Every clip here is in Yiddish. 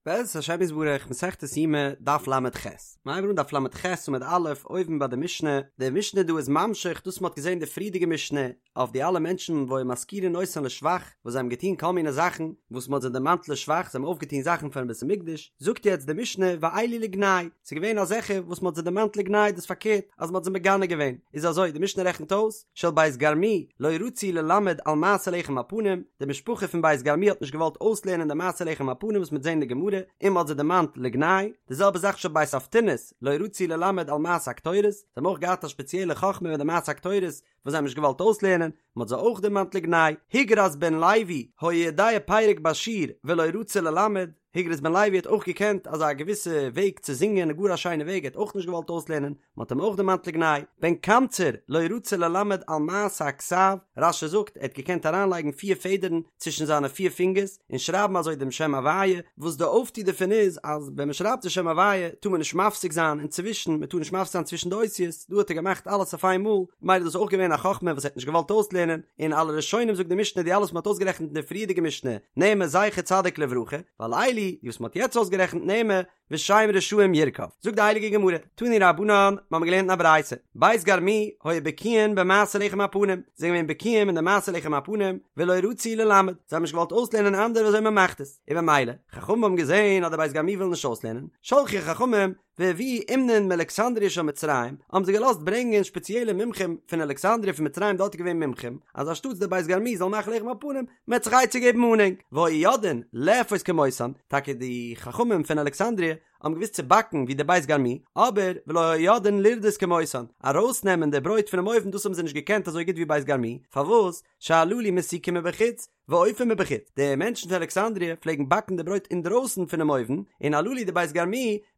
בעזרת השם יתברך, מסכת יומא, דף ל"ח. מ'הייבט אן דף ל"ח עמוד א', אויבן ביי די משנה, די משנה דא איז ממשיך דאס מ'האט געזען די פריערדיגע משנה, אויף די אלע מענטשן והיו מזכירין אותן לשבח, וואס זיי האבן געטון כל מיני זאכן וואס מ'האט זיי דערמאנט לשבח, זיי האבן אויפגעטון זאכן פארן בית המקדש, זאגט יעצט די משנה ואלו לגנאי, ס'איז געווען אזעלכע וואס מ'האט זיי דערמאנט לגנאי דאס פארקערט אז מ'האט זיי מגנה געווען, איז אזוי, די משנה רעכנט אויס, של בית גרמו לא רצו ללמד על מעשה לחם הפנים, די משפחה פון בית גרמו האט נישט געוואלט אויסלערנען די מעשה לחם הפנים וואס מ'וועט זען אין די גמרא, און מ'האט זיי דערמאנט לגנאי, די זעלבע זאך של בית אבטינס לא רצו ללמד על מעשה הקטורת, זיי האבן אויך געהאט א שפעציעלע חכמה מיט די מעשה הקטורת וואס זיי האבן נישט געוואלט אויסלערנען, מ'האט זיי אויך דערמאנט לגנאי, הוגרס בן לוי היה יודע פרק בשיר ולא רצה ללמד, הוגרס בן לוי האט אויך געקענט אזא געוויסע וועג צו זינגען, גאר א שיינע וועג, ער האט אויך נישט געוואלט אויסלערנען, מען האט אים אויך דערמאנט לגנאי, בן קמצר לא רצה ללמד על מעשה הכתב, רש"י זאגט ער האט געקענט אריינלייגן פיר פעדערן צווישן זיינע פיר פינגערס און שרייבן אזוי דעם שם הוויה, וואס די אויפטו דערפון איז אז ווען מען שרייבט די שם הוויה טאר מען נישט מפסיק זיין אינצווישן, מען טאר נישט מפסיק זיין צווישן די אותיות, דא האט ער געמאכט אלעס אויף איין מאל, ממילא איז דאס אויך געווען א חכמה וואס ער האט נישט געוואלט אויסלערנען, און על הראשונים זאגט די משנה די אלע וואס מען האט אויסגערעכנט אין די פריערדיגע משנה, נאמר זכר צדיק לברכה, ועל אלו, די וואס מען האט יעצט אויסגערעכנט נאמר, ושם רשעים ירקב. זאגט די הייליגע גמרא, תנו רבנן, מיר האבן געלערנט אין א ברייתא, בית גרמו היו בקיאין במעשה לחם הפנים, זיי זענען געווען בקיאים אין די מעשה לחם הפנים, ולא רצו ללמד, זיי האבן נישט געוואלט אויסלערנען אנדערע ווי אזוי מען מאכט עס, און במילא, חכמים האבן געזען אז די בית גרמו ווילן נישט אויסלערנען, שלחו חכמים, והביאו אומנין מאלכסנדריה של מצרים, האבן זיי געלאזט ברענגען שפעציעלע מומחים פון אלכסנדריה פון מצרים דארט איז געווען מומחים, אז אנשטאטס די בית גרמו זאל מאכן לחם הפנים, מען וועט זיך עצה געבן אן ענק, והיו יודעין לאפות כמותן, טאקע די חכמים פון אלכסנדריה האבן געוואוסט צו באקן ווי די בית גרמו, אבער ולא היו יודעין לרדות כמותן, ארויסנעמען די ברויט פונעם אויוון דאס האבן זיי נישט געקענט אזוי גוט ווי בית גרמו, פארוואס? שהללו מסיקין מבחוץ, ואופין מבחוץ, די מענטשן פון אלכסנדריה פלעגן באקן די ברויט אינדרויסן פונעם אויוון, און הללו די בית גרמו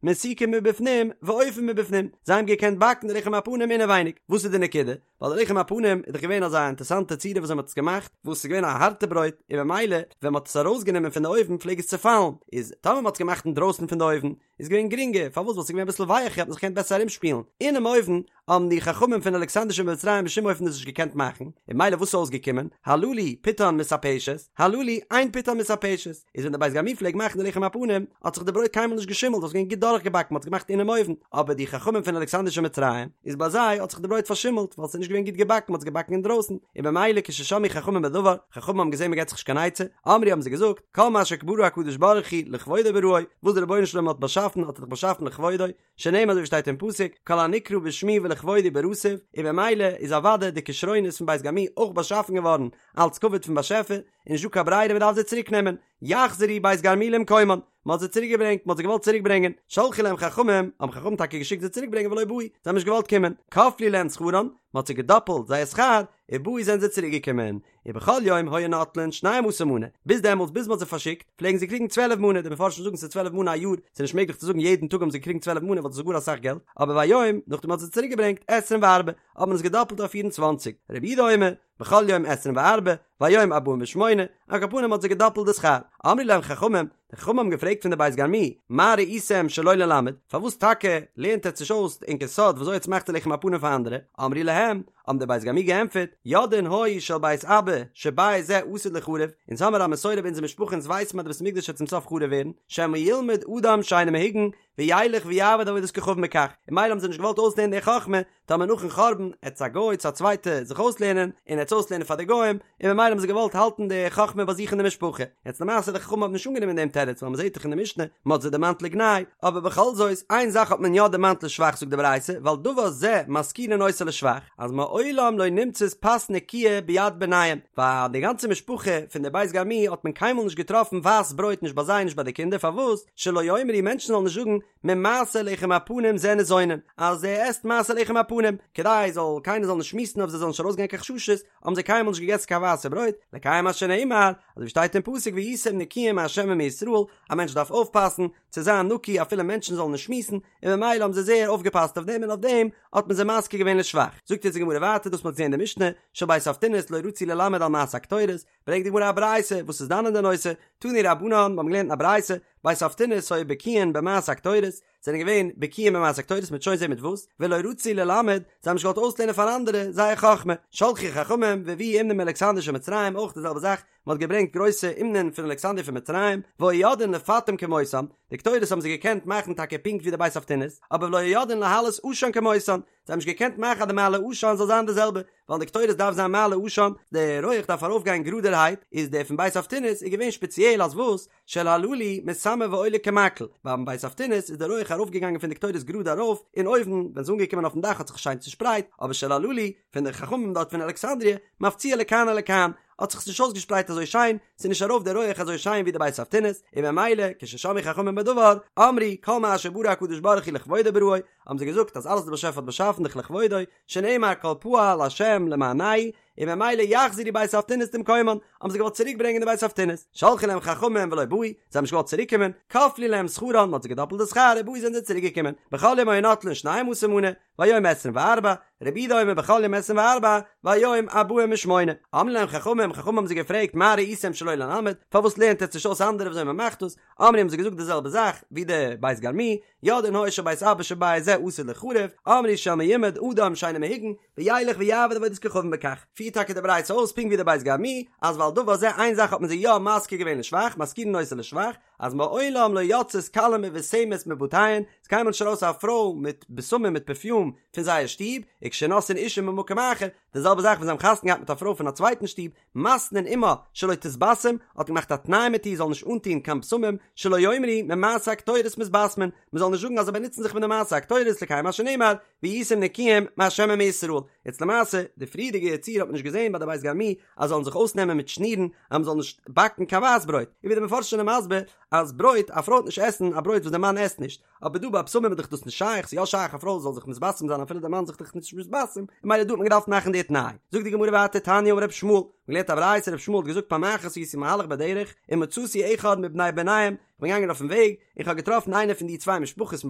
מסיקין מבפנים ואופין מבפנים, זיי האבן געקענט באקן די לחם הפנים אינעווייניג, וואס איז די נקודה? ווייל די לחם הפנים איז דאך געווען אזא אינטערסאנטע צורה וואס מען האט עס געמאכט, וואס איז געווען א הארטע ברויט, און במילא ווען מען האט עס ארויסגענומען פון די אויוון פלעג עס צעפאלן, איז טאמער מען האט עס געמאכט אינדרויסן פון די אויוון, איז געווען גרינגער, פארוואס? ווייל ס'איז געווען אביסל ווייעכער האט מען זיך געקענט בעסער ארומשפילן, אינעם אויוון האבן די חכמים פון אלכסנדריה שבמצרים בשום אופן דאס נישט געקענט מאכן, און במילא וואס איז אויסגעקומען, הללו פיתן מתעפשת, הללו אין פיתן מתעפשת, איז ווען די בית גרמו פלעג מאכן די לחם הפנים, האט זיך די ברויט קיינמאל נישט געשימלט, ווייל ס'איז געווען גוט דורכגעבאקן, מ'האט עס געמאכט אינעם אויוון, אבער די חכמים פון אלכסנדריה שבמצרים, איז ביי זיי האט זיך די ברויט פארשימלט, ווייל ס'איז נישט געווען גוט געבאקן, מ'האט עס געבאקן אינדרויסן, און במילא כששמעו חכמים בדבר, חכמים האבן געזען מ'געט זיך נישט קיין עצה, אמרו האבן זיי געזאגט, כל מה שברא הקדוש ברוך הוא לכבודו בראו, וואס דער רבונו של עולם האט באשאפן האט ער דאך באשאפן לכבודו, שנאמר אזוי ווי שטייט אין פסוק, כל הנקרא בשמי ולכבודי בראתיו, און במילא איז אוודאי די כשרונות פון בית גרמו אויך באשאפן געווארן אלץ כבוד פון באשעפער, און נישט דא קיין ברירה מען דארף זיי צוריק נעמען, יחזרו בית גרמו למקומן, מען האט זיי צוריק געברענגט, מען האט זיי געוואלט צוריק ברענגען, שלחו להם חכמים, האבן חכמים טאקע געשיקט זיי צוריק ברענגען ולא באו, זיי האבן נישט געוואלט קומען, כפלו להם שכרן, מען האט זיי געדאפלט זייער שכר, ובאו זענען זיי צוריק געקומען, ובכל יום היו נוטלין שנים עשר מנה, ביז דעמאלטס ביז מען האט זיי פארשיקט, פלעגן זיי קריגן צוועלף מנה, די מפרשים זאגן ס'איז צוועלף מנה א יאר, ס'איז נישט מעגליך צו זאגן יעדן טאג האבן זיי געקריגן צוועלף מנה ווייל דאס איז גאר אסאך געלט, אבער והיום, נאכדעם מען האט זיי צוריק געברענגט, עשרים וארבע, האט מען עס געדאפלט אויף פיר און צוואנציג, רבי יהודה אומר, בכל יום עשרים וארבע, והיום ארבעים ושמונה, על כל פנים האט זיי געדאפלט די שכר, אמרו להם חכמים, די חכמים האבן געפרעגט פון די בית גרמו, מה ראיתם שלא ללמד, פארוואס טאקע לערנט עטץ נישט אויס ענקער סוד ווי אזוי עטץ מאכט די לחם הפנים פאר אנדערע, אמרו להם, האבן די בית גרמו געענטפערט, יודעין היו של בית אבא, שבית זה עתיד ליחרב, אונז האמיר א מסורה ביי אונזער משפחה אונז ווייסן אז די בית המקדש וועט צום סוף חרוב ווערן, שמא ילמד אדם שאינו מהוגן, וילך ויעבוד עבודת כוכבים בכך, און מילא האבן זיי נישט געוואלט אויסלערנען די חכמה, טאמער נאכן חורבן עט א גוי צו א צווייטע זיך אויסלערנען און עט עס אויסלערנען פאר די גוים, און ממילא האבן זיי געוואלט האלטן די חכמה ביי זיך אין די משפחה. יעצט למעשה די חכמים האבן נישט אנגענומען דעם תירוץ ווייל מ'זעט דאך אין די משנה מ'האט זיי דערמאנט לגנאי, אבער בכל זאת איין זאך האט מען יא דערמאנט לשבח זאגט די ברייתא ועל דבר זה מזכירין אותו לשבח אז מעולם לא נמצאת פת נקיה ביד בניהם ביי די גאנצע משפחה פון די בית גרמו האט מען קיינמאל נישט געטראפן ווייס ברויט נישט ביי זיי נישט ביי די קינדער פארוואס שלא יאמרו מענטשן זאלן נישט זאגן ממעשה לחם הפנים זה ניזונין, אז ער עסט מעשה לחם הפנים, כדי זאל קיינער זאל נישט שמועסן אויף זיי זאלן נישט ארויסגיין קיין חששות, האבן זיי קיינמאל נישט געגעסן קיין ווייסע ברויט, לקיים מה שנאמר, אזוי ווי שטייט אין פסוק והייתם נקיים מה' ומישראל, א מענטש דארף אויפפאסן צו זיין נקי אפילו מענטשן זאלן נישט שמועסן, און ממילא האבן זיי זייער אויפגעפאסט אויף דעם און אויף דעם האט מען זיי מזכיר געווען לשבח. זאגט יעצט די גמרא ווייטער דאס מען האט געזען אין די משנה, של בית אבטינס לא רצו ללמד על מעשה הקטורת, ברענגט די גמרא א ברייתא וואס איז דן אין די נושא, תנו רבנן, מיר האבן געלערנט אין א ברייתא, בית אבטינס היו בקיאין במעשה הקטורת, זענען געווען בקיאים במעשה הקטורת מ'וועט שוין זען מיט וואס, ולא רצו ללמד, זיי האבן נישט געוואלט אויסלערנען פאר אנדערע זייער חכמה, שלחו חכמים והביאו אומנים מאלכסנדריה של מצרים, אויך די זעלבע זאך, מען האט געברענגט גרויסע אומנים פון אלכסנדריה פון מצרים, והיו יודעין לפטם כמותם, די קטורת האבן זיי געקענט מאכן טאקע פונקט ווי די בית אבטינס, אבער ולא היו יודעין להעלות עשן כמותן, זיי האבן נישט געקענט מאכן אז די מעלה עשן זאל זיין די זעלבע, ווייל די קטורת דארף זיין מעלה עשן, די רויעך דארף ארויפגיין גראדערהייט, איז דער פון בית אבטינס איז געווען שפעציעל אז וואס? של הללו מתמר ועולה כמקל, ביים בית אבטינס איז די רויעך ארויפגעגאנגען פון די קטורת גראד ארויף, און אויבן ווען ס'איז אנגעקומען אויפן דאך האט זיך שיין צושפרייט, אבער של הללו פון די חכמים דארט פון אלכסנדריה, מפציע לכאן ולכאן, האט זיך עס נישט אויסגעשפרייט אזוי שיין, ס'איז נישט ארויף די רויעך אזוי שיין ווי די בית אבטינס, און ממילא כששמעו חכמים בדבר, אמרו, כל מה שברא הקדוש ברוך הוא לכבודו בראו, האבן זיי געזאגט אז אלעס וואס דער באשעפער האט באשאפן דאך לכבודו, שנאמר כל פעל השם למענהו, און ממילא יחזירו בית אבטינס למקומן, האבן זיי געוואלט צוריק ברענגען די בית אבטינס, שלחו להם חכמים ולא באו, זיי האבן נישט געוואלט צוריק קומען, כפלו להם שכרן, מען האט זיי געדאפלט די שכר, ובאו זענען זיי צוריק געקומען, בכל יום היו נוטלין שנים עשר מנה, והיום עשרים וארבע, רבי יהודה אומר בכל יום עשרים וארבע, והיום ארבעים ושמונה. אמרו להם חכמים, חכמים האבן זיי געפרעגט מה ראיתם שלא ללמד, פארוואס לערנט עטץ נישט אויס אנדערע וויאזוי מען מאכט דאס, אמרו האבן זיי געזאגט די זעלבע זאך ווי די בית גרמו, יודעין היו של בית אבא שבית זה עתיד ליחרב, אמרו של מימד אדם שאינו מהוגן, וילך ויעבוד עבודת כוכבים בכך. פירט טאקע די ברייתא אויס פונקט ווי די בית גרמו, אז ועל דבר זה איין זאך האט מען זיי יא מזכיר געווען לשבח, מזכירין אותו לשבח, אז מעולם לא יצאת כלה מבושמת מבתיהן, ס'איז קיינמאל נישט ארויס א פרוי מיט בשמים מיט פערפיום פון זייער שטוב, וכשנושאין אישה ממקום אחר, די זעלבע זאך ווען זיי האבן חתונה געהאט מיט א פרוי פון א צווייטן שטוב, מתנין עמה שלא תתבשם, האט מען געמאכט א תנאי מיט איר זאל נישט אנטון קיין בשמים, שלא יאמרו ממעשה הקטורת מתבשמין, מען זאל נישט זאגן אז זיי באנוצן זיך מיט די מעשה הקטורת לקיים מה שנאמר, והייתם נקיים מה' ומישראל. יעצט למעשה, די פריערדיגע ציור האט מען נישט געזען ביי די בית גרמו אז זאלן זיך אויסנעמען מיט שנירן אז מען זאל נישט באקן קיין ווייס ברויט, און ווי די מפרשים זענען מסביר אז ברויט, א פרוי וועט נישט עסן א ברויט וואס די מאן עסט נישט, אבער דא ביי בשמים איז דאך דאס נישט שייך, ס'איז יא שייך א פרוי זאל זיך מתבשם זיין אפילו די מאן זיך דאך נישט מתבשם, און ממילא דא האט מען געדארפט מאכן די תנאי. זאגט די גמרא ווייטער תניא אמר רבי ישמעאל, מ'האט געלערנט א ברייתא רבי ישמעאל האט געזאגט פעם אחת הייתי מהלך בדרך ומצאתי אחד מבני בניהם, כ'בין געגאנגען אויפן וועג און כ'האב געטראפן איינער פון די צוויי משפחות פון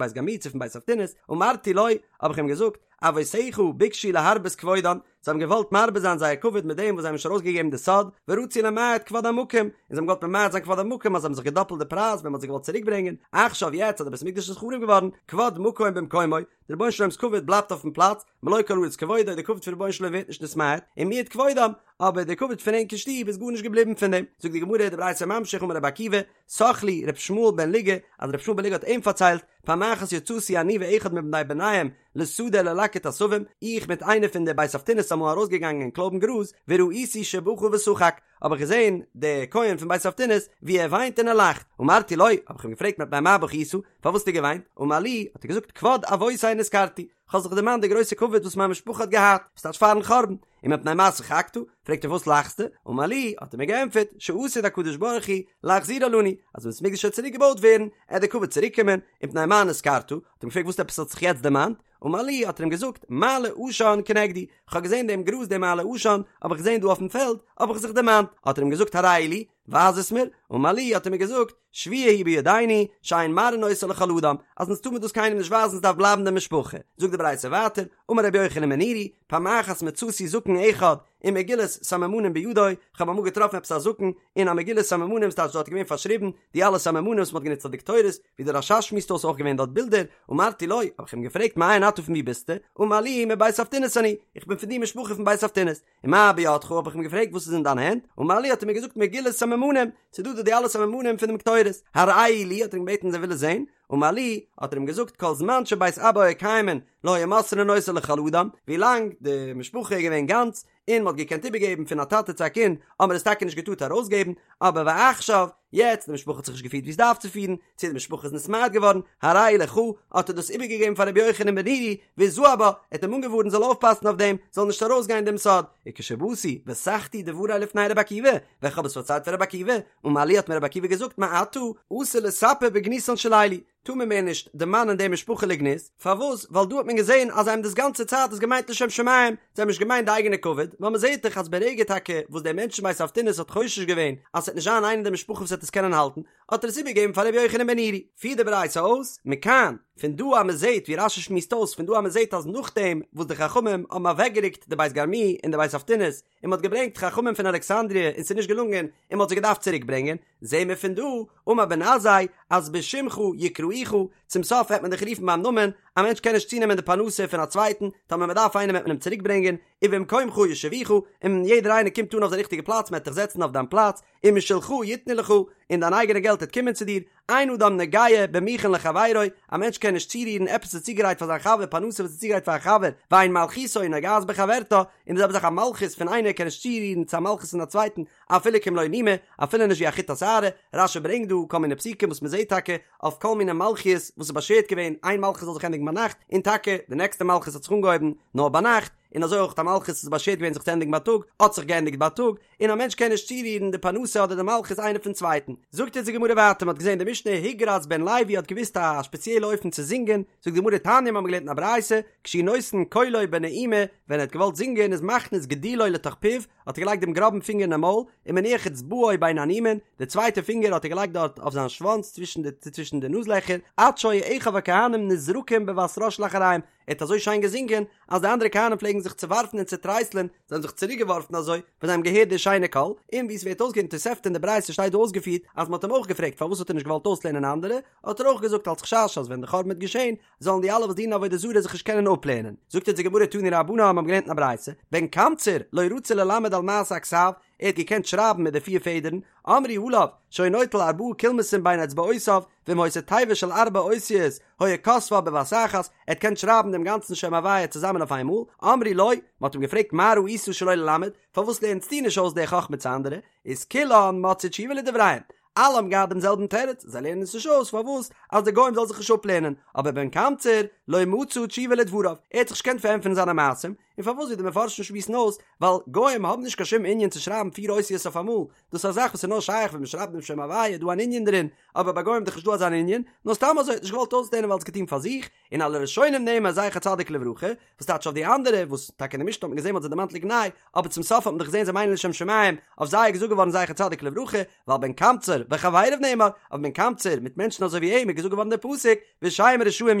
בית גרמו צו פון בית אבטינס, אמרתי לו, האב איך אים געזאגט, אבותיך ביקשו להרבות כבודן, זיי האבן געוואלט מרבה זיין זייער כבוד מיט דעם וואס זיי האבן נישט ארויסגעגעבן די סוד, ורצו למעט כבוד המקום, און זיי האבן געוואלט ממעט זיין כבוד המקום אז זיי האבן זיך געדאפלט די פרייז ווען מען האט זיי געוואלט צוריקברענגען, עכשיו יעצט אז די בית המקדש איז חרוב געווארן, כבוד מקום במקומו, די רבונו של עולם'ס כבוד בלייבט אויפן פלאץ, מלא כל הארץ כבודו, די כבוד פון רבונו של עולם ווערט נישט נתמעט, און מיעוט כבודם, אבער די כבוד פון ענקער שטוב איז גארנישט געבליבן פון דעם. זאגט די גמרא, די ברייתא ממשיך, אמר רבי עקיבא, סח לי ר' ישמעאל בן לוגא, אז ר' ישמעאל בן לוגא האט אים פארציילט, פעם אחת יצאתי אני ואחד מבני בניהם לשדה ללקט עשבים, איך מיט איינער פון די בית אבטינס אמאל ארויסגעגאנגען קלויבן גראז, וראיתי שבכה ושחק, האב איך געזען די כהן פון בית אבטינס ווי ער וויינט און ער לאכט, אמרתי לו, האב איך אים געפרעגט מפני מה בכית, פארוואס האסטו געוויינט, אמר לי, האט ער געזאגט כבוד אבותי נזכרתי, כ'האב זיך דערמאנט די גרויסע כבוד וואס מיין משפחה האט געהאט, וואס טייטש פארן חורבן, ומפני מה שחקת, פרעגט ער וואס לאכסטו, אמר לי, האט ער מיר געענטפערט, שעתיד הקדוש ברוך הוא להחזירה לנו, אז ווען בית המקדש וועט צוריק געבויט ווערן, עט די כבוד צוריק קומען, ומפני מה נזכרת, האט ער אים געפרעגט וואס עפעס האט זיך יעצט דערמאנט, אמר לי, האט ער אים געזאגט, מעלה עשן כנגדי, כ'האב געזען דעם גראז דעם מעלה עשן, האב איך געזען דא אויפן פעלד, האב איך זיך דערמאנט, האט ער אים געזאגט הראהו לי, ווייז עס מיר, אמר לי, האט ער מיר געזאגט, שבועה היא בידינו, שאין מראין אותה לכל אדם, אז אונז טאר מען דאס קיינעם נישט ווייזן עס דארף בלייבן די משפחה. זאגט די ברייתא ווייטער, אמר רבי יוחנן בן נורי, פעם אחת מצאתי זקן אחד ומגילת סממנים בידו, איך האב אמאל געטראפן עפעס א זקן און א מגילת סממנים, ס'טייטש דארט איז געווען פארשריבן די אלע סממנים וואס מ'האט גענוצט אויף די קטורת, ווי דער רש"ש שמועסט אויס אויך געווען דארט בילדער, אמרתי לו, האב איך אים געפרעגט מאין אתה פון ווי ביסטו, אמר לי מבית אבטינס אני, איך בין פון די משפחה פון בית אבטינס. ומה בידך האב איך אים געפרעגט וואס איז אין דיין הענט, אמר לי האט ער מיר געזאגט מגילת סממנים, ס'איז דא דא די אלע סממנים פון דעם קטורת, הראהו לי האט ער אים געבעטן אז ער וויל עס זען, אמר לי האט ער אים געזאגט כל זמן שבית אבא היו קיימין לא היו מוסרין אותה לכל אדם, ווי לאנג די משפחה איז געווען גאנץ און מ'האט געקענט איבערגעבן פון א טאטע צו א קינד האט מען עס טאקע נישט געטארט ארויסגעבן, אבער ועכשיו, יעצט די משפחה האט זיך נישט געפירט ווי עס דארף צו פירן, צו די משפחה איז נתמעט געווארן, הרי הוא לך, האט ער דאס איבערגעגעבן פאר רבי יוחנן בן נורי, והזהר בה, ער האט אים אנגעווארנט זאל אויפפאסן אויף דעם, זאל נישט ארויסגיין דעם סוד, וכשבאתי, וסחתי דברי לפני רבי עקיבא, ווען כ'האב עס פארציילט פאר רבי עקיבא, אמר לי האט מיר רבי עקיבא געזאגט מעתה, אסור לספר בגנותן של אלו, טאר מען מער נישט דערמאנען די משפחה לגנות, פארוואס? ווייל דא האט מען געזען אז זיי האבן דאס גאנצע צייט עס געמיינט לשם שמים, זיי האבן נישט געמיינט די אייגענע כבוד, ווייל מען זעט דאך אז ברגע טאקע וואס דער מענטש פון בית אבטינס האט חושש געווען אז ס'וועט נישט זיין איינער אין די משפחה וואס וועט עס קענען האלטן, האט ער עס איבערגעגעבן פאר רבי יוחנן בן נורי. פירט די ברייתא אויס, מכאן, פון דא אז מען זעט ווי רש"י שמועסט אויס פון דא אז מען זעט אז נאכדעם וואס די חכמים האבן אוועקגערוקט די בית גרמו און די בית אבטינס, און מ'האט געברענגט חכמים פון אלכסנדריה און ס'איז נישט געלונגען און מ'האט זיי געדארפט צוריק ברענגען, זעהן מיר פון דא, אמר בן עזאי, אז בשמך יקראוך, צום סוף וועט מען דיך רופן ביים נאמען, א מענטש קען נישט צונעמען די פרנסה פון א צווייטן, טאמער מען דארף איינעם וועט מען אים צוריק ברענגען, ובמקומך יושיבוך, און יעדער איינער קומט אן אויף די ריכטיגע פלאץ, מען וועט דיך זעצן אויף דיין פלאץ, ומשלך יתנו לך, און דיין אייגענע געלט וועט קומען צו דיר, אין אדם נוגע במוכן לחבירו, א מענטש קען נישט צורירן עפעס וואס איז צוגעגרייט פאר זיין חבר, פרנסה וואס איז צוגעגרייט פאר א חבר, ואין מלכותו נוגעת בחברתה, און די זעלבע זאך א מלכות פון איינער קען נישט צורירן צו א מלכות פון א צווייטן, אפילו כמלא נימא, אפילו נישט ווי א חוט השערה, רש"י ברענגט דא כל מיני פסוקים וואס מען זעט טאקע אויף כל מיני מלכיות וואס איז באשערט געווען איין מלכות זאל זיך ענדיגן ביינאכט, און טאקע די נעקסטע מלכות האט זיך אנגעהויבן נאר ביינאכט, און אזוי אויך א מלכות איז באשערט געווען זיך צו ענדיגן בייטאג, האט זיך געענדיגט בייטאג, און א מענטש קען נישט צורירן די פרנסה אדער די מלכות איינער פון צווייטן. זאגט אונז די גמרא ווייטער, מען האט געזען די משנה הוגרס בן לוי האט געוואוסט א שפעציעלע אופן צו זינגען, זאגט די גמרא תניא מיר האבן געלערנט אין א ברייתא, כשהוא נותן קולו בנעימה, ווען ער האט געוואלט זינגען איז מכניס גודלו לתוך פיו, האט ער געלייגט דעם גראבן פינגער אינעם מויל, ומניח אצבעו בין הנימין, די צווייטע פינגער האט ער געלייגט דארט אויף זיין שוואנץ צווישן די צווישן די נאז לעכער, עד שהיו אחיו הכהנים נזרקים בבת ראש לאחריהם, ער האט אזוי שיין געזינגען, אז די אנדערע כהנים פלעגן זיך צעווארפן און צעטרייסלען, זיי האבן זיך צוריקגעווארפן אזוי, ווען זיי האבן געהערט די שיינע קול, און ווי עס ווערט אויסגעפירט אין תוספתא אין די ברייתא שטייט דא אויסגעפירט, אז מען האט אים אויך געפרעגט פארוואס האט ער נישט געוואלט אויסלערנען אנדערע, האט ער אויך געזאגט אלס חשש אז ווען די חורבן וועט געשען, זאלן די אלע וואס דינען עבודה זרה זיך נישט קענען אפלערנען. זאגט אונז די גמרא תנו רבנן האבן געלערנט אין א ברייתא, בן קמצר לא רצה ללמד על מעשה הכתב, ער האט געקענט שרייבן מיט די פיר פעדערן, אמרו עליו, שהיה נוטל ארבעה קולמסין בין אצבעותיו, ואם היתה תיבה של ארבע אותיות, היה כותבה בבת אחת, ער האט געקענט שרייבן דעם גאנצן שם הוויה צוזאמען אויף איינמאל, אמרו לו, מען האט אים געפרעגט מה ראית שלא ללמד, פארוואס לערנסטו נישט אויס די חכמה צו אנדערע, איז כולן מצאו תשובה לדבריהם, אלע האבן געהאט דעם זעלבן תירוץ, זיי לערנען עס נישט אויס פארוואס אז די גוים זאלן זיך נישט אפלערנען, אבער בן קמצר לא מצא תשובה לדבריו, ער האט זיך נישט געקענט פארענטפערן זיינע מעשים, און פארוואס ווי די מפרשים שמועסן אויס, ווייל גוים האבן נישט קיין שום ענין צו שרייבן פיר אותיות אויף אמאל, דאס איז א זאך וואס איז נאר שייך ווען מען שרייבט דעם שם הוויה איז דא אן ענין דערין, אבער ביי גוים איז דאך נישט דא אזא ענין, נאר סתם אזוי האט נישט געוואלט אויסלערנען ווייל עס געטון פאר זיך, און על הראשונים נאמר זכר צדיק לברכה, וואס טייטש אויף די אנדערע, וואס טאקע אין די משנה האט מען געזען מ'האט זיי דערמאנט לגנאי, אבער צום סוף האט מען דאך געזען זיי מיינען לשם שמים, אויף זיי איז געזאגט געווארן זכר צדיק לברכה, ועל בן קמצר וחבריו נאמר, אויף בן קמצר מיט מענטשן אזוי ווי אים איז געזאגט געווארן דער פסוק, ושם רשעים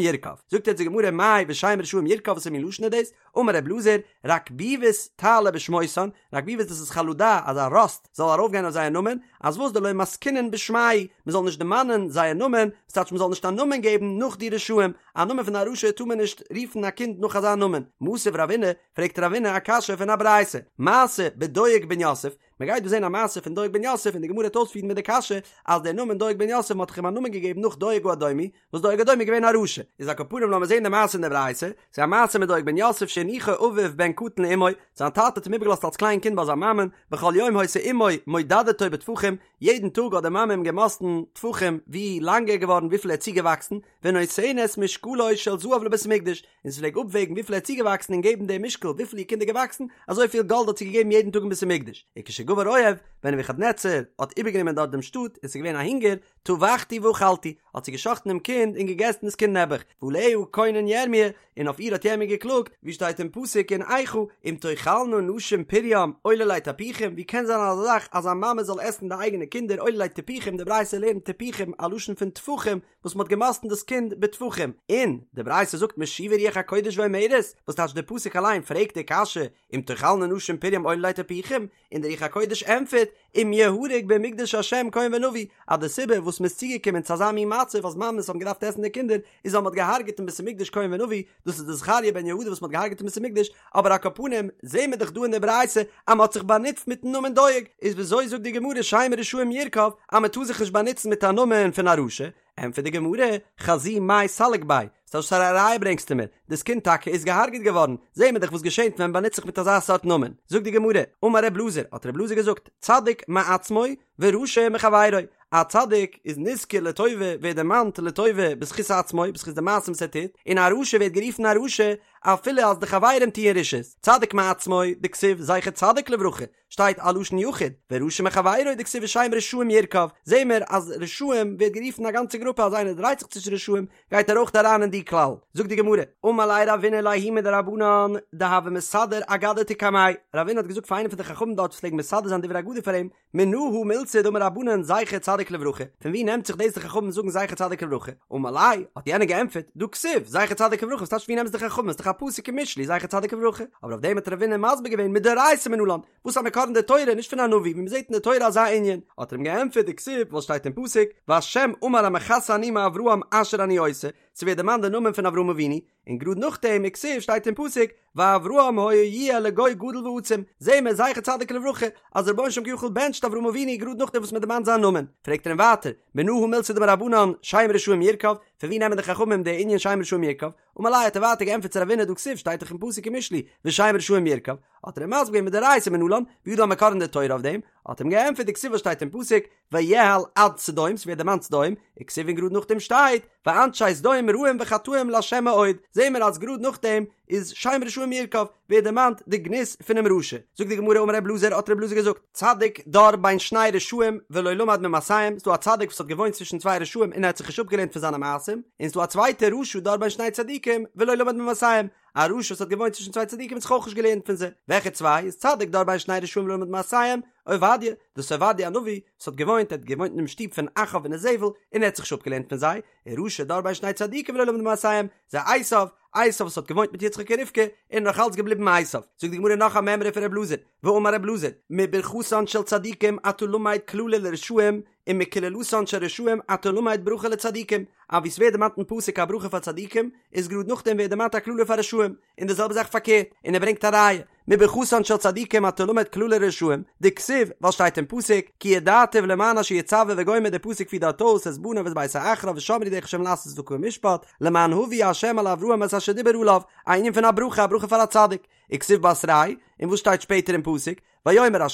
ירקב. זאגט יעצט די גמרא מאי ושם רשעים ירקב וואס מין לשון איז דאס? אמר ר' אלעזר, רקביבות תעלה בשמותן, רקביבות דאס איז חלדה, אזא ראסט זאל ארויפגיין אויף זייער נאמען, אז וואס דלא מסקינן בשמייהו, מען זאל נישט דערמאנען זייער נאמען, וואס טייטש מען זאל נישט א נאמען געבן נאך די רשעים, א נאמען פון א רשע טאר מען נישט רופן א קינד נאך אזא נאמען. מתיב רבינא, פרעגט רבינא א קשיא פון א ברייתא, מעשה בדואג בן יוסף, מען גייט דא זען א מעשה פון דואג בן יוסף און די גמרא וועט אויספירן מיט די קשיא אז דער נאמען דואג בן יוסף מען האט דאך אים א נאמען געגעבן נאך דואג האדומי, וואס דואג האדומי איז געווען א רשע, איז על כל פנים לאמיר זען די מעשה אין די ברייתא, ס'איז א מעשה מיט דואג בן יוסף שהניחו אביו בן קטן לאמו, זיין טאטע האט אים איבערגעלאזט אלס קליין קינד ביי זיין מאמען, בכל יום היתה אמו מודדתו בטפחים, יעדן טאג האט די מאמע אים געמאסטן טפחים ווי לאנג ער איז געווארן וויפיל ער איז צוגעוואקסן, ונותנת משקלו של זהב לבית המקדש, און זי פלעג אפוועגן וויפיל ער איז צוגעוואקסן און געבן דעם משקל וויפיל איר קינד איז געוואקסן, אזוי פיל גאלד האט זי געגעבן יעדן טאג אין בית המקדש. וכשגבר אויב, ווען נבוכדנצר האט איבערגענומען דארט דעם שטאט און ס'איז געווען א הונגער, טבחתי ואכלתי, האט זי געשחט'ן דעם קינד און געגעסן דאס קינד נעבעך, ועליה קונן ירמי', און אויף איר האט ירמי' געקלאגט, ווי שטייט אין פסוק אין איכה, אם תאכלנה נשים פרים עוללי טפוחים, ווי קען זיין אזא זאך אז א מאמע זאל עסן די אייגענע קינדער עוללי טפוחים, די ברייתא לערנט טפוחים א לשון פון טפחים, וואס מ'האט געמאסטן דאס קינד בטפחים, און די ברייתא זאגט משיבה רוח הקודש ואומרת, וואס טייטש די פסוק אליין פרעגט די קשיא, אם תאכלנה נשים פרים עוללי טפוחים, און דער רוח הקודש ענטפערט, אם יהרג במקדש השם כהן ונביא, אז די סיבה וואס מ'איז צוגעקומען צו אזא מין מצב אז מאמעס האבן געדארפט עסן די קינדער, איז ווייל מ'האט געהארגעט אין בית המקדש כהן ונביא, דאס איז די זכריה בן יהוידע וואס מ'האט געהארגעט אין בית המקדש, אבער על כל פנים זעהן מיר דאך דא אין די ברייתא אז מ'האט זיך באנוצט מיטן נאמען דואג, איז וויאזוי זאגט די גמרא שם רשעים ירקב אז מ'טאר זיך נישט באנוצן מיט א נאמען פון א רשע? ענטפערט די גמרא, חזי מאי סליק ביה, ס'טייטש וואס פאר א ראיה ברענגסטו מיר? דאס קינד טאקע איז געהארגעט געווארן, זעהן מיר דאך וואס געשענט ווען מ'באנוצט זיך מיט אזא סארט נאמען. זאגט די גמרא, אמר ר' אלעזר, האט ר' אלעזר געזאגט, צדיק מעצמו ורשע מחבירו, א צדיק איז נזכר לטובה, ווערט דערמאנט לטובה בזכות עצמו, בזכות די מעשים וואס ער טוט, און א רשע ווערט גערופן א רשע אפילו אז די חברים טוען רשעות, צדיק מעצמו, דכתיב זכר צדיק לברכה, שטייט א לשון יחיד, ורשע מחבירו דכתיב ושם רשעים ירקב, זעהן מיר אז רשעים ווערט גערופן א גאנצע גרופע אז איינער דרייט זיך צווישן רשעים גייט ער אויך אריין אין די כלל, זאגט די גמרא, אמר ליה רבינא לההוא מדרבנן דהוה מסדר אגדתא קמיה, רבינא האט געזאגט פאר איינעם פון די חכמים דארט וואס פלעגן מסדר זיין דברי אגדה פאר אים, מנא הא מילתא דאמור רבנן זכר צדיק לברכה, פון ווי נעמט זיך דאס די חכמים זאגן זכר צדיק לברכה? אמר ליה, האט יענער געענטפערט, דהא כתיב, זכר צדיק לברכה, וואס טייטש ווי נעמען עס די חכמים, עס איז דאך א א פסוק אין משלי זכר צדיק לברכה, אבער אויף דעם האט רבינא מסביר געווען מדאורייתא מנלן, וואס א מקור אין די תורה, נישט פון א נביא, ווי מ'זעט אין די תורה אזא ענין, האט ער אים געענטפערט דכתיב וואס שטייט אין פסוק, והשם אמר המכסה אני מאברהם אשר אני עושה, ס'ווערט דערמאנט די נאמען פון אברהם אבינו, און גראד נאכדעם וכתיב שטייט אין פסוק ואברהם היה יהיה לגוי גדול ועצום, זעהן מיר זכר צדיק לברכה אז דער רבונו של עולם כביכול בענטשט אברהם אבינו גראד נאכדעם וואס מען דערמאנט זיין נאמען, פרעגט ער אים ווייטער, מנא הא מילתא דאמור רבנן שם רשעים ירקב, פון ווי נעמען די חכמים די ענין שם רשעים ירקב, אמר ליה האט ער ווייטער געענטפערט צו רבינא דהא כתיב שטייט דאך אין פסוק אין משלי ושם רשעים ירקב, האט ער אים מסביר געווען מדאורייתא מנלן, ווי איז דא א מקור אין די תורה אויף דעם, האט ער אים געענטפערט דכתיב וואס שטייט אין פסוק ויאהל עד סדום, ס'ווערט דערמאנט סדום, וכתיב און גראד נאכדעם שטייט, ואנשי סדום רעים וחטאים לה' מאוד, זעהן מיר אז גראד נאכדעם איז שם רשעים ירקב, ווערט דערמאנט די גנות פונעם רשע. זאגט די גמרא אמר ר' אלעזר האט ר' אלעזר געזאגט, צדיק דר בין שני רשעים ולא למד ממעשיהם, ס'דא א צדיק וואס האט געוואוינט צווישן צוויי רשעים און ער האט זיך נישט אפגעלערנט פון זיינע מעשים, און ס'דא א צווייטער רשע דר בין שני צדיקים ולא למד ממעשיהם, א רשע וואס האט געוואוינט צווישן צוויי צדיקים האט זיך אויך נישט געלערנט פון זיי. וועלכע צוויי? איז צדיק דר בין שני רשעים ולא למד ממעשיהם, עובדיה, דאס איז עובדיה הנביא, וואס האט געוואוינט, ער האט געוואוינט אינעם שטוב פון אחאב און איזבל, און ער האט זיך נישט אפגעלערנט פון זיי, און רשע דר בין שני צדיקים ולא למד ממעשיהם, זה עשיו, עשיו וואס האט געוואוינט מיט יצחק און רבקה, און נאך אלץ געבליבן עשיו. זאגט די גמרא נאך א מימרא פון ר' אלעזר, ואמר ר' אלעזר, מברכתן של צדיקים אתה למד קללה לרשעים, ומקללתן של רשעים אתה למד ברכה לצדיקים, אז ווי ס'ווערט דערמאנט אין פסוק א ברכה פאר צדיקים, איז גראד נאכדעם ווערט דערמאנט א קללה פאר רשעים, און די זעלבע זאך פארקערט, און ער ברענגט א ראיה, מברכתן של צדיקים אתה למד קללה לרשעים, דכתיב, ווייל שטייט אין פסוק, כי ידעתיו למען אשר יצוה וגומר די פסוק פירט דארט אויס את בניו ואת ביתו אחריו ושמרו דרך השם לעשות צדקה ומשפט, למען הביא ה' על אברהם את אשר דיבר עליו, א ענין פון א ברכה, א ברכה פאר א צדיק, וכתיב בתריה, און וואס שטייט שפעטער אין פסוק, ויאמר ה',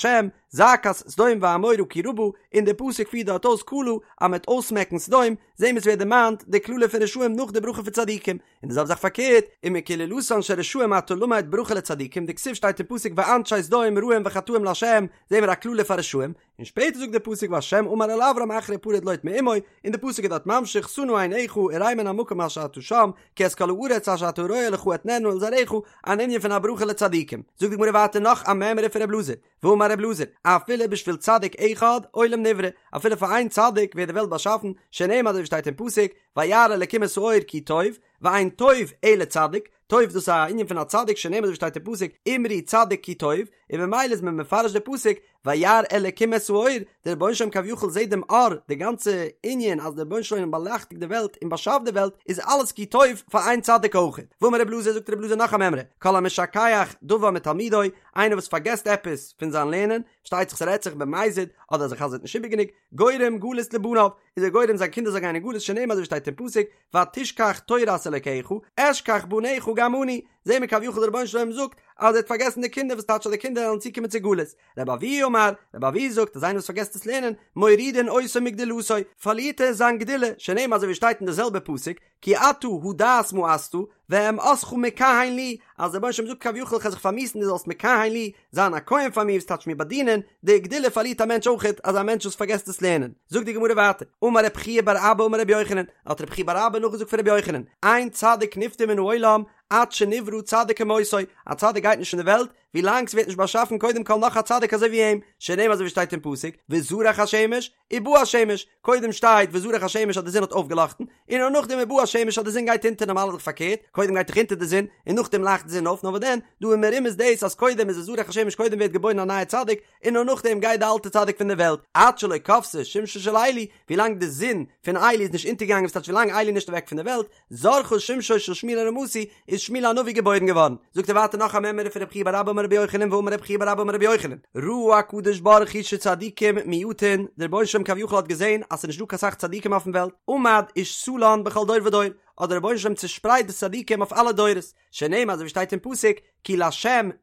זעקת סדום ועמורה כי רבה, און דער פסוק פירט דארט אויס כלה, אז מ'וועט אויסמעקן סדום, זעהן מיר ס'ווערט דערמאנט די קללה פון רשעים נאך די ברכה פון צדיקים, און די זעלבע זאך פארקערט, ומקללתן של רשעים אתה למד ברכה לצדיקים, דכתיב שטייט אין פסוק ואנשי סדום רעים וחטאים לה', זעהן מיר א קללה פאר רשעים, און שפעטער זאגט דער פסוק וה' אמר אל אברם אחרי הפרד לוט מעמו, און די פסוק איז דארט ממשיך שא נא עיניך וראה מן המקום אשר אתה שם, כי את כל הארץ אשר אתה רואה לך אתננה ולזרעך, אן ענין פון א ברכה לצדיקים. זאגט די גמרא ווייטער נאך א מימרא פון ר' אלעזר, ואמר ר' אלעזר, אפילו בשביל צדיק אחד עולם נברא, אפילו פאר איין צדיק ווערט די וועלט באשאפן, שנאמר אזוי ווי שטייט אין פסוק, וירא אלקים את האור כי טוב, ואין טוב אלא צדיק, טוב דאס איז א ענין פון א צדיק שנאמר אזוי ווי שטייט אין פסוק, אמרו צדיק כי טוב, און ממילא איז מען מפרש די פסוק, וירא אלקים את האור, דער רבונו של עולם כביכול זעט דעם אור, די גאנצע ענין אז דער רבונו של עולם באלייכטיגט די וועלט און באשאפט די וועלט, איז אלעס כי טוב פאר איין צדיק אויך. ואמר רב אלעזר זאגט רב אלעזר נאך א מימרא, כל המשכח דבר מתלמודו, איינער וואס פארגעסט עפעס פון זיין לערנען, שטייט זיך ס'רעדט זיך במזיד, אדער אז ער חזר'ט נישט איבער גענוג, גורם גלות לבניו, איז ער גורם זיין קינדער זאלן גיין אין גלות שנאמר אזוי ווי שטייט אין פסוק, ותשכח תורת אלקיך, אשכח בניך גם אני, זעהן מיר כביכול דער רבונו של עולם זאגט אז ער האט פארגעסן די קינדער וואס טייטש אז די קינדער וועלן צוקומען צו גלות, רבי אבהו אמר, רבי אבהו זאגט אז איינער וואס פארגעסט דאס לערנען, מורידין אותו מגדולתו, פארלירט ער זיין גדולה, שנאמר אזוי ווי שטייט אין די זעלבע פסוק, כי אתה הדעת מאסת, ואמאסך מכהן לי, אז דער רבונו של עולם זאגט כביכול איך וועל זיך פארמיאוסן דו זאלסט מכהן לי, זיין א כהן פאר מיר וואס טייטש מיר באדינען, די גדולה פארלירט א מענטש אויכעט, אזא מענטש וואס פארגעסט דאס לערנען. זאגט די גמרא ווייטער, אמר רב חייא בר אבא אמר רבי יוחנן, האט רב חייא בר אבא נאכגעזאגט פון רבי יוחנן, אין צדיק נפטר מן העולם עד שנברא צדיק כמותו, א צדיק גייט נישט פון די וועלט ווילאנג ס'ווערט נישט באשאפן קודם כל נאך א צדיק אזוי ווי אים, שנאמר אזוי ווי שטייט אין פסוק, וזרח השמש, ובא השמש, קודם שטייט וזרח השמש אז די זון האט אויפגעלאכטן, און נאר נאכדעם ובא השמש אז די זון גייט אונטער נארמאל איז דאך פארקערט, קודם גייט דאך אונטער די זון, און נאכדעם לייכט די זון אויף, נאר וואס דען, דא איז מרומז דאס אז קודם איז וזרח השמש קודם ווערט געבוירן א נייע צדיק, און נאר נאכדעם גייט די אלטע צדיק פון די וועלט, עד שלא כבתה שמשו של עלי, ווילאנג די זון פון עלי איז נישט אונטערגעגאנגען וואס טייטש ווילאנג עלי איז נישט אוועק פון די וועלט, זרחה שמשו של שמואל הרמתי, איז שמואל הנביא געבוירן געווארן. זאגט ער ווייטער נאך א מימרא פון רב חייא בר אבא אמר רבי יוחנן ואמר רב חייא בר אבא אמר רבי יוחנן, ראה הקדוש ברוך הוא שצדיקים מועטין, דער רבונו של עולם כביכול האט געזען אז ס'איז נישט דא קיין סאך צדיקים אויפן וועלט, עמד ושתלן בכל דור ודור, האט דער רבונו של עולם צושפרייט די צדיקים אויף אלע דורות, שנאמר אזוי ווי שטייט אין פסוק, כי לה'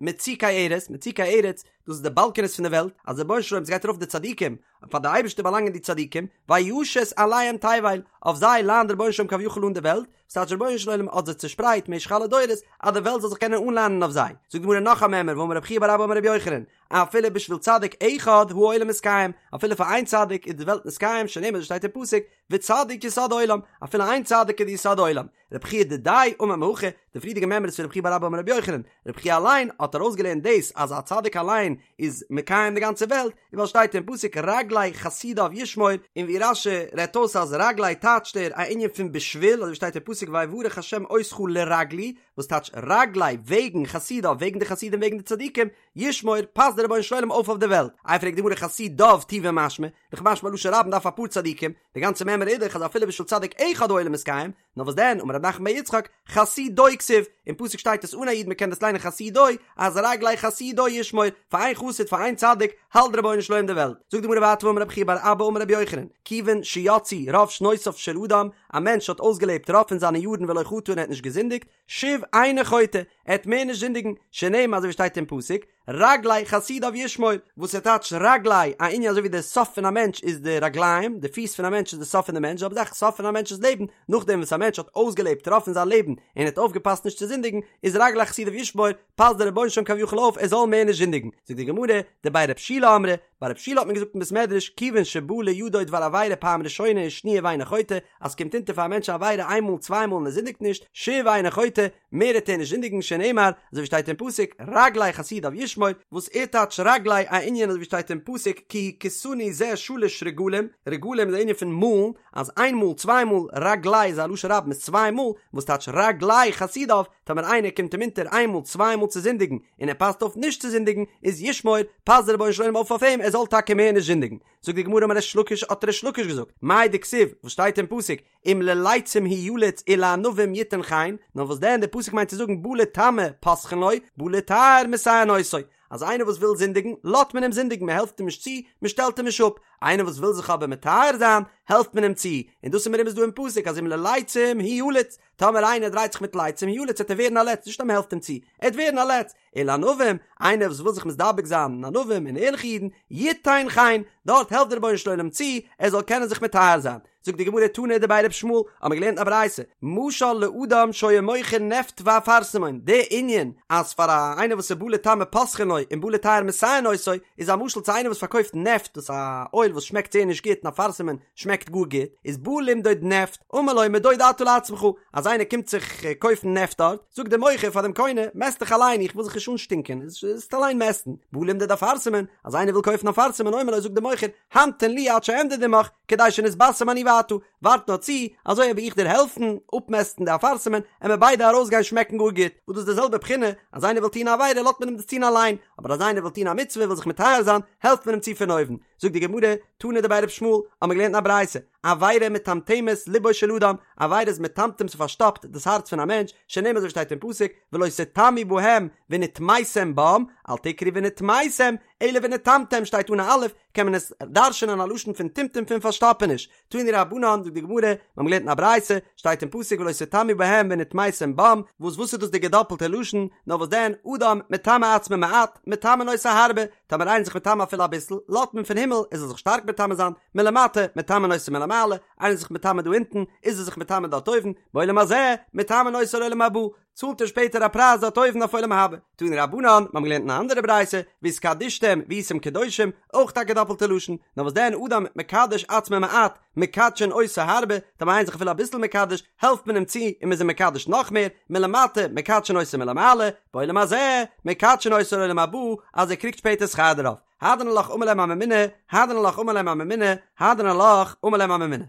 מצוקי ארץ, מצוקי ארץ, דאס איז די באלקענעס פון די וועלט, אז דער רבונו של עולם ס'גייט ארויף די צדיקים, פאר די אייבערשטער באלאנגען די צדיקים, וישת עליהם תבל, אויף זיי ליינט דער רבונו של עולם כביכול אן די וועלט, וואס טייטש דער רבונו של עולם האט זיי צושפרייט משך אלע דורות, אז די וועלט זאל זיך קענען אנליינען אויף זיי. זאגט די גמרא נאך א מימרא, ואמר רב חייא בר אבא אמר רבי יוחנן, אפילו בשביל צדיק אחד העולם מתקיים, אפילו פאר איין צדיק איז די וועלט מתקיים, שנאמר אזוי שטייט אין פסוק, וצדיק יסוד עולם, אפילו איין צדיק איז די יסוד עולם. רבי חייא דידיה אמר מהכא, די פריערדיגע מימרא איז פון רבי חייא בר אבא אמר רבי יוחנן, רבי חייא אליין האט ארויסגעלערנט דאס אז א צדיק אליין איז מקיים די גאנצע וועלט, און ווייל שטייט אין פסוק רגלי חסידיו ישמור, און ווי רש"י רעדט אויס אז רגלי טייטשט ער א ענין פון בשביל, אזוי ווי שטייט אין פסוק ויברך ה' אותך לרגלי, וואס טייטש רגלי וועגן חסידיו וועגן די חסידים וועגן די צדיקים, ישמור, פאסט דער רבונו של עולם אויף אויף די וועלט. איי פרעגט די גמרא חסידיו טובא משמע, דאך משמע לשון רבים דארף אפאר צדיקים, די גאנצע מימרא איז דאך אז אפילו בשביל צדיק אחד העולם מתקיים, נאר וואס דען, אמר רב נחמן בר יצחק, חסידו כתיב, אין פסוק שטייט עס אן א יוד מען קען דאס ליינען חסידו, אז רגלי חסידו ישמור, פאר איין חסיד פאר איין צדיק, האלט דער רבונו של עולם די וועלט. זאגט די גמרא ווייטער ואמר רבי חייא בר אבא אמר רבי יוחנן, כיוון שיצאו רוב שנותיו של אדם, א מענטש האט אויסגעלעבט רוב פון זיינע יארן ולא חטא און ער האט נישט געזינדיגט, שוב אינו חוטא, ער וועט מער נישט זינדיגן, שנאמר אזוי ווי שטייט אין פסוק, רגלי חסידיו ישמור, וואס ער טייטשט רגלי, א ענין אזוי ווי די סוף פון א מענטש איז די רגליים, די פיס פון א מענטש איז די סוף פון די מענטש, זעלבע זאך סוף פון א מענטש'ס לעבן, נאכדעם וואס א מענטש האט אויסגעלעבט רוב פון זיין לעבן און האט אויפגעפאסט נישט צו זינדיגן, איז רגלי חסידיו ישמור, פאסט דער רבונו של עולם כביכול אויף ער זאל מער נישט זינדיגן. זאגט די גמרא, דבי רב שילא אמרי, ביי רב שילא האט מען געזאגט אין בית מדרש, כיוון שבא לידו דבר עבירה פעם ראשונה ושניה ואינו חוטא, אז ס'קומט אונטער פאר א מענטש א עבירה איין מאל צוויי מאל און ער זינדיגט נישט, שוב אינו חוטא, מער וועט ער נישט זינדיגן שנאמר, אזוי ווי שטייט אין פסוק, רגלי חסידיו ישמור, וואס ער טייטשט רגלי א ענין אזוי ווי שטייט אין פסוק כי הכיתני זה שלש רגלים, רגלים איז א ענין פון מאלן, אז איין מאל צוויי מאל, רגלי איז א לשון רבים איז צוויי מאל, וואס טייטשט רגלי חסידיו, טאמער איינער קומט אים אונטער איין מאל צוויי מאל צו זינדיגן און ער פאסט אויף נישט צו זינדיגן, איז ישמור, פאסט דער רבונו של עולם אויף אויף אים ער זאל טאקע מער נישט זינדיגן. זאגט די גמרא אמר ריש לקיש האט ריש לקיש געזאגט, מאי דכתיב, וואס שטייט אין פסוק, אם ללצים הוא יליץ ולענווים יתן חן, נאר וואס דען דער פסוק מיינט צו זאגן בא לטמא פותחין לו, בא לטהר מסייעין אותו, אז איינער וואס וויל זינדיגן, לאזט מען אים זינדיגן, מען העלפט אים נישט צו, מען שטעלט אים נישט אפ, איינער וואס וויל זיך אבער מטהר זיין, העלפט מען אים צו, און דאס איז מרומז דא אין פסוק אז אם ללצים הוא יליץ, טאמער איינער דרייט זיך מיט לצים הוא יליץ וועט ער ווערן א לץ, נישט אז מען העלפט אים צו, ער וועט ווערן א לץ, ולענווים, איינער וואס וויל זיך מתדבק זיין אין ענווים און ערליכע אידן, יתן חן, דארט העלפט דער רבונו של עולם צו, ער זאל קענען זיך מטהר זיין. זאגט די גמרא תנא דבי ר' ישמעאל, האבן מיר געלערנט א ברייתא, משל לאדם שהיה מוכר נפט ואפרסמון, די ענין אז פאר א איינער וואס איז בא לטמא פותחין לו און בא לטהר מסייעין אותו, איז א משל צו איינער וואס פארקויפט נפט, דאס איז א אויל וואס שמעקט זייער נישט גוט און אפרסמון שמעקט גאר גוט, איז בא למדוד נפט, אמר לו מדוד אתה לעצמך, אז איינער קומט זיך קויפן נפט דארט, זאגט דער מוכר פאר דעם קונה, מעסט דיך אליין, איך וויל זיך נישט אנשטינקען, זאלסט אליין מעסטן, בא למדוד אפרסמון, אז איינער וויל קויפן אפרסמון, אומר לו זאגט דער מוכר, המתן לי עד שאמדוד עמך, כדי שנתבשם אני ואתה, ווארט נאר צו, אזוי וועל איך דיר העלפן אפמעסטן די אפרסמון, עמיר ביידע ארויסגיין שמעקן גאר גוט, וואס דאס איז די זעלבע בחינה, אז איינער וויל טון א עבירה לאזט מען אים דאס טון אליין, אבער אז איינער וויל טון א מצוה וויל זיך מטהר זיין, העלפט מען אים צו פון אויבן. זאגט די גמרא, תנא דבי ר' ישמעאל, האמיר געלערנט אין א ברייתא, עבירה מטמטמת לבו של אדם, עבירה איז מטמטם ס'פארשטאפט דאס הארץ פון א מענטש, שנאמר אזוי ווי שטייט אין פסוק, ולא תטמאו בהם ונטמתם בם, אל תקרי ונטמאתם, אלא ונטמתם שטייט אן א אלף, קען מען עס דרש'נען א לשון פון טמטום פון פארשטאפעניש. תנו רבנן, זאגט די גמרא, מיר האבן געלערנט אין א ברייתא, שטייט אין פסוק ולא תטמאו בהם ונטמתם בם, וואס וואס איז דאס די געדאפלטע לשון, נאר וואס דען, אדם מטמא עצמו מעט, מטמאין אותו הרבה, טאמער איינער איז זיך מטמא אפילו אביסל, לאזט מען פון הימל, ער זאל זיך שטארק מטמא זיין, מלמטה, מטמאין אותו מלמעלה, איינער איז זיך מטמא דא אונטן, איז ער זיך מטמא דארט אויבן, בעולם הזה, מטמאין אותו לעולם הבא, צאלט ער שפעטער א פרייז דארט אויבן אויף עולם הבא. תנו רבנן, מיר האבן געלערנט אין א אנדערע ברייתא, והתקדשתם והייתם קדושים, אויך א געדאפלטע לשון, נאר וואס דען אדם מקדש עצמו מעט, מקדשין אותו הרבה, טאמער איינער איז זיך אפילו אביסל מקדש, העלפט מען אים צו און מען איז אים מקדש נאך מער, מלמטה, מקדשין אותו מלמעלה, בעולם הזה, מקדשין אותו לעולם הבא, אז ער קריגט שפעטער שכר דערויף. הדרן עלך אמר להם הממונה, הדרן עלך אמר להם הממונה, הדרן עלך אמר להם הממונה.